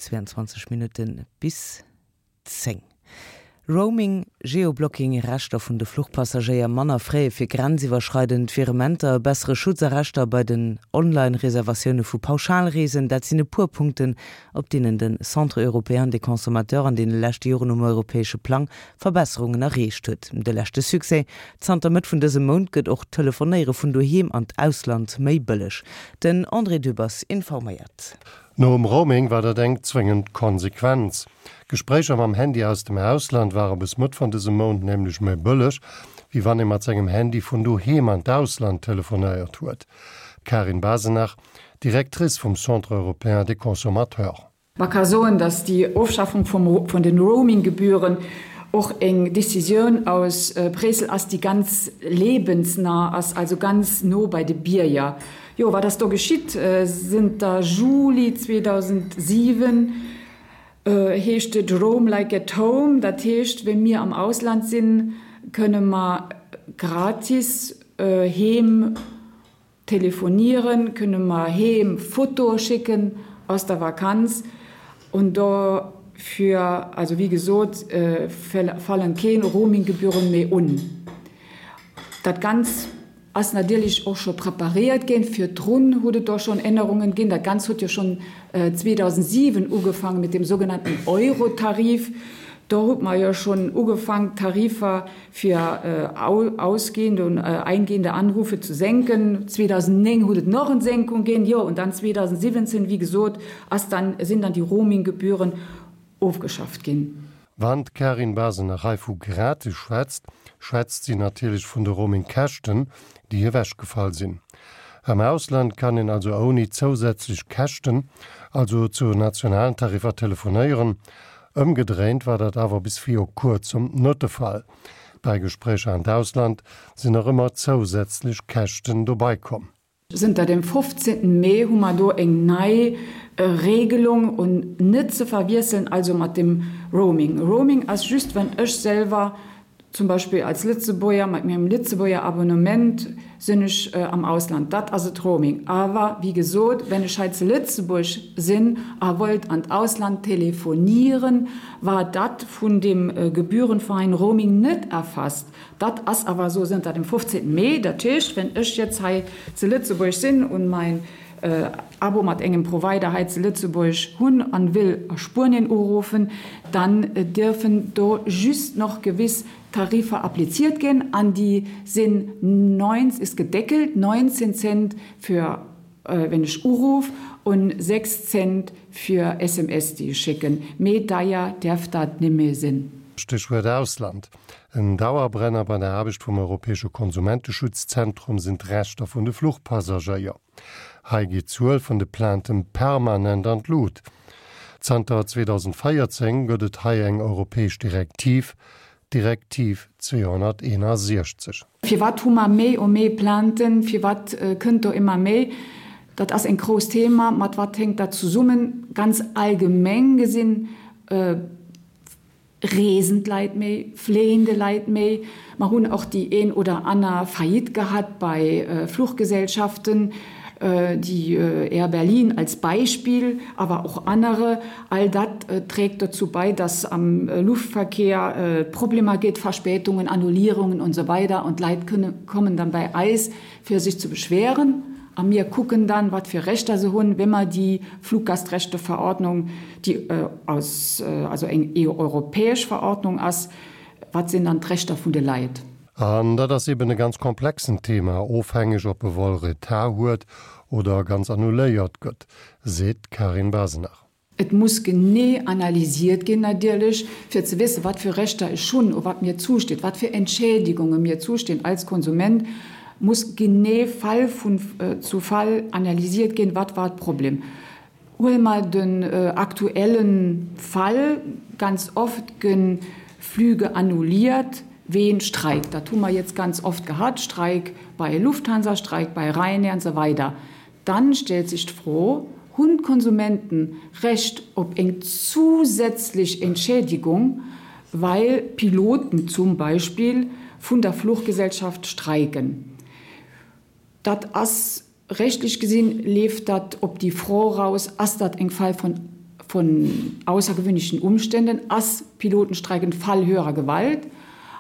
22 Minutte bis 10. Roaming, Geoblocking, Rechter vun de Fluchpassagéier, manner Frais fir grenziwwerschreidend Virementer, e bessere Schutz a Rechter bei den Online-Reservatioune vu Pauschalreesen, dat sinn e puer Punkten, op deenen de Centre européen des consommateurs an deene leschte Joren um europäesche Plang Verbesserungen erreecht huet. De leschte Succès, Zanter Mëtt vun dësem Mount gëtt och d'Telefonéiere vun doheem an d'Ausland méi bëlleg. Den André Dübbers informéiert. Nom Roaming war dat eng zwéngend Konsequenz. Gespréicher mam Handy aus dem Ausland ware bis Mëtt vun dësem Mount nämlech méi bëlleg, wéi wann ee mat sengem Handy vun doheem an d'Ausland telefonéiert huet. D'Karin Basenach, Directrice vum Centre européen des consommateurs. Ma ka soen, datt déi Ofschaffung vun den Roaming-Gebühren och eng Décisioun aus Bréissel ass, déi ganz lebensnah ass, also ganz no bei de Bierger. Jo, wat ass do geschitt? Zënter Juli 2007 heescht et Roam like at home, dat heescht, wéi mir am Ausland sinn, kënne mer gratis heem Telefonieren, kënne mer heem Fotoe schécken aus der Vakanz und dofir, also wéi gesot, fallen keen Roaminggebühren méi un. Dat Ganz ass natierlech och scho preparéiert ginn, virdrun huet et do schonn Ännerungen ginn. Dat Ganz huet jo schonn 2007 ugefaangen mit dem sogenannten Eurotarif. Do huet mer jo schonn ugefaangen d'Tarifer fir ausgehende und eingehende Anrufe zu senken. 2009 huet et nach en Senkung ginn, jo, und dann 2017, wéi gesot, ass dann, sinn dann déi Roaminggebühren ofgeschafft ginn. Wann d'Karin Basenach hei vu gratis schwätzt, schwätzt si natierlech vun de Roamingkäschten, déi ewechgefall sinn. Am Ausland kann een also ouni zousätzlech Käschten, also zu nationalen Tariffer telefonéieren. Ëmgedréint war dat awer bis viru kuerzem net de Fall. Bei Gespréicher an d'Ausland sinn nach ëmmer zousätzlech Käschten dobei komm. Zënter dem 15 Mee hu mer do eng nei Regelung un net ze verwiesselen also mat dem Roaming. Roaming ass just wann ech selwer Zum Beispill als Lëtzebuerger mat mengem Lëtzebuerger Abonnement sinn ech am Ausland, dat ass et Roaming. Awer wéi gesot, wenn ech hei zu Lëtzebuerg sinn a wollt an d'Ausland telefonieren, war dat vun dem gebührenfreien Roaming net erfasst. Dat ass awer esou zënter dem 15 Mee. Dat heescht, wenn ech jetzt hei zu Lëtzebuerg sinn un mein Abo mat engem Provider hei zu Lëtzebuerg hunn an will a Spuenien uruffen, dann dierfen do just noch gewiss Tarifer appliziert ginn an déi sinn 9, ist gedeckelt, 19 Cent fir wenn ech uruff und 6 Cent fir SMS déi ech schécken. Méi deier däerf dat nimmee sinn. Stéchwuert Ausland. En Dauerbrenner bei der Aarbecht vum Europäesche Konsumenteschutzzentrum sinn d'Rechter vun de Fluchpassagéier. Hei geet d'Zuel vun de Plainten permanent an d'Lut. Zanter 2014 gëtt et hei eng europäesch Direktiv, d'Direktiv 261. Firwat hu mer méi o méi Plainten? Firwat kënnt do ëmmer méi? Dat ass en grousst Thema. Mat wat hänkt dat zesummen? Ganz allgemeng gesinn Reesen d'Leit méi, fléien de Leit méi. Mer hunn och déi een oder aner Faillite gehat bei Fluchgesellschaften, déi Air Berlin als Beispill, awer och anere. All dat trägt dozou bei, dass am Luftverkehr et Problemer gétt, Verspätungen, Annullierungen und so weider und d'Leit kommen dann bei eis, fir sech ze beschweren, a mir kucken dann, wat fir Rechter se hunn, wa mer déi Fluggastrechteverordnung, déi aus, also eng europäesch Verordnung ass, wat sinn dann d'Rechter vun de Leit. An dat ass eben e ganz komplexen Thema, ofhängeg ob e Vol Retard huet oder ganz annuléiert gëtt, seet d'Karin Basenach. Et muss genee analysiert ginn natierlech, fir ze wëssen, wat fir Rechter ech hunn, o wat mir zusteet, wat fir Entschädigunge mir zustinn als Konsument, muss genee Fall vun zu Fall analysiert ginn, wat war d'Problem. Huele mer den aktuelle Fall, ganz oft gi Flüge annulliert ween Streik. Dat hu mer jetzt ganz oft gehat, Streik bei Lufthansa, Streik bei Ryanair an esou weider. Dann stellt sech d'Fro, Hunn d'Konsumenten Recht op eng zusätzlech Entschädigung, well Piloten zum Beispill vun der Fluchgesellschaft streiken? Dat ass rechtlech gesinn, leeft dat op déi Fro raus, Ass dat eng Fall von. von außergewöhnlichen Umständen ass Pilotenstreik en Fall höherer Gewalt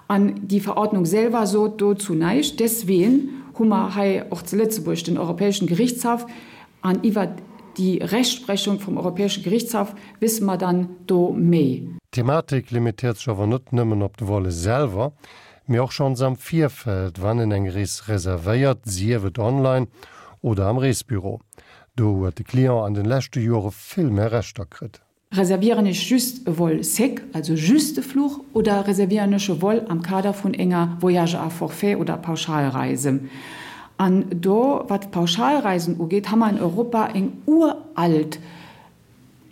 an déi Verordnung selwer sot dozou näischt. Desween hu mer hei och zu Lëtzebuerg den Europäeschen Gerichtshaff an iwwert déi Rechtsprechung vum Europäesche Gerichtshaff wësse mer dann do méi. D'Thematik limitéiert sech awer net nëmmen op de Volle selwer, mee och schonns am Virfeld, wann een eng Rees reservéiert, sief et online oder am Reesbüro. Do huet de Client an den leschte Jore vill méi Rechter kritt. Reservieren ech just e Vol sec, also just de Fluch, oder reservieren ech e Vol am Kader vun enger Voyage à forfait oder Pauschalreise? An do, wat d'Pauschalreisen ugeet, ha mer an Europa eng uralt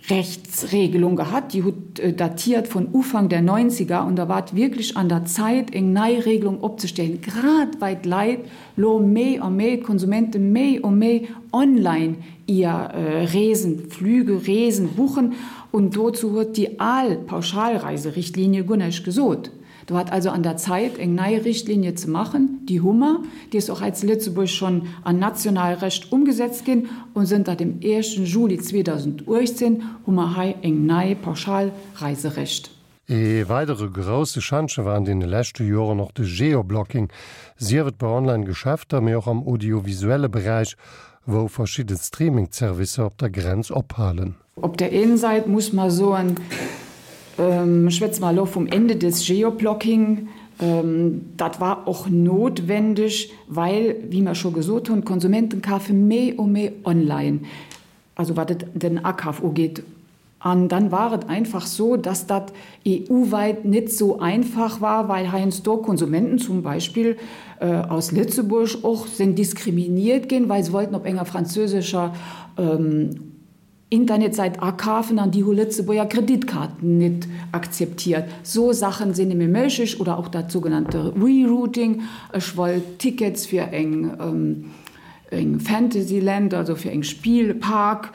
Rechtsregelung gehat, déi hutt datiert vun Ufank der Neunziger, und da war et wierklech an der Zait, eng nei Regelung opzestellen, grad well d'Leit lo méi a méi, d'Konsumente méi a méi online ihr Reesen, Flüge, Reesen buchen, und dozou huet déi al Pauschalreiserichtlinie guer näischt gesot. Do war et also an der Zait, eng nei Richtlinie ze maachen. Déi hu mer, déi ass och hei zu Lëtzebuerg schonn an national Recht umgesetzt ginn, und zënter dem éischten Juli 2018 hu mer hei eng nei Pauschalreiserecht. Ee weidere grousse Schantje war an deene leschte Joren och de Geoblocking, sief et bei Online-Geschäfter, mee och am audiovisuelle Beräich, wou verschidde Streaming-Zerwisser op der Grenz ophalen. Op der een Sait muss mer soen, schwätze mer elo vum Ende des Geoblocking, dat war och notwendig, well, wéi mer scho gesot hunn, d'Konsumenten kafe méi u méi online, also wat et den Akaf ugeet. An dann war et einfach so, dass dat EU-weit net sou einfach war, well heiansdo Konsumenten zum Beispill aus Lëtzebuerg och sinn diskriminiert ginn, well se wollten op enger französischer Internetsäit akafen an déi hu Lëtzebuerger Kreditkaarten net akzeptiert. Sou Saachen sinn némme méiglech oder och dat sougenannte Rerouting, ech wollt Tickets fir eng eng Fantasyland, also fir eng Spielpark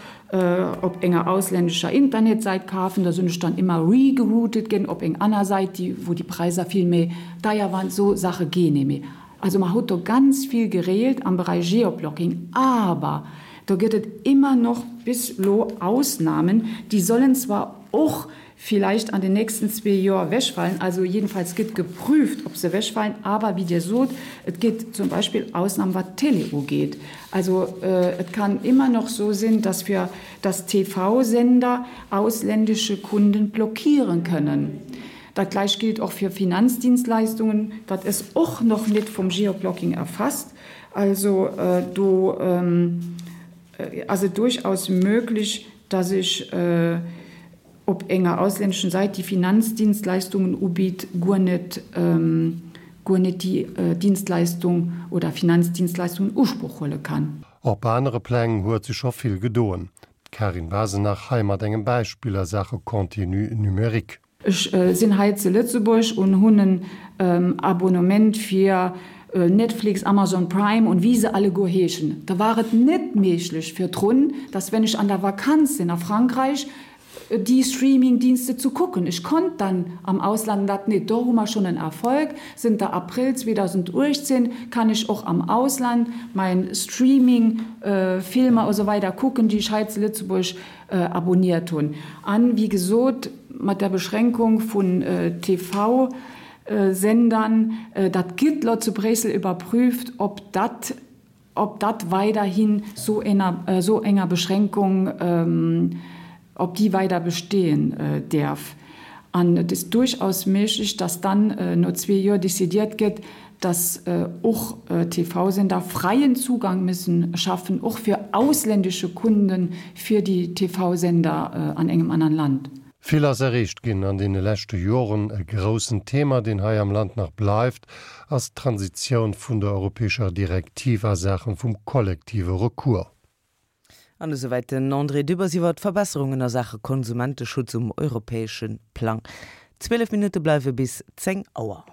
op enger auslännescher Internetsäit kafen, da sinn ech dann ëmmer regeroutet ginn op eng aner Säit, déi wou déi Präisser vill méi deier waren. Sou Saache ginn némme. Also mer hutt do ganz vill gereelt am Beräich Geoblocking, awer do gëtt et ëmmer noch bis elo Ausnahmen, déi sollen zwar och vielleicht an den nächsten zwee Joer wegfallen, also jedenfalls gëtt geprüft, ob se wegfallen, awer wéi Dir sot, et gétt zum Beispill Ausnahmen, wat d'Télé ugeet. Also et kann immer noch so sinn, dass fir dass TV-Sender ausländische Kunden blockieren kënnen. Dat gleich gilt och fir Finanzdienstleistungen, dat ass och noch net vum Geoblocking erfasst. Also do ass et durchaus möglich, dass ech op enger auslänneschen Säit, déi Finanzdienstleistungen ubitt, guer net guer net déi Dienstleistung oder Finanzdienstleistung in Usproch huele kann. Op anere Pläng huet sech scho vill gedoen. D'Karin Basenach hei mat engem Beispill a Saache Contenu numérique. Ech sinn hei zu Lëtzebuerg un hunn en Abonnement fir Netflix, Amazon Prime und wéi se alleguer heeschen. Da war et net méiglech virdrun, dass wenn ech an der Vakanz sinn a Frankreich, déi Streamingdienste zu kucken. Ech konnt dann am Ausland dat net. Do hu mer schonn en Erfolg. Zënter April 2018 kann ech och am Ausland mein Streaming Filmer a sou weider kucken, déi ech hei zu Lëtzebuerg abonniert hunn. An, wéi gesot, mat der Beschränkung vun TV-Sendern, dat gëtt lo zu Bréissel überprüft, ob dat, ob dat weiderhin sou ener, sou enger Beschränkung, ob déi weider bestehen däerf. An et ist durchaus méiglech, dass dann no zwee Joer décidiert gëtt, dass och TV-Sender freien Zugang müssen schaffen, och fir ausländische Kunden fir déi TV-Sender an engem anern Land. Vill ass erreecht ginn an deene leschte Joren. E groussen Thema, deen hei am Land nach bleift, ass d'Transitioun vun der europäescher Direktiv a Saache vum kollektive Recours. An esouwäit den André Dübbers iwwer d'Verbesserungen a Saache Konsumenteschutz um europäesche Plang. 12 Minutte bleiwe bis 10 Auer.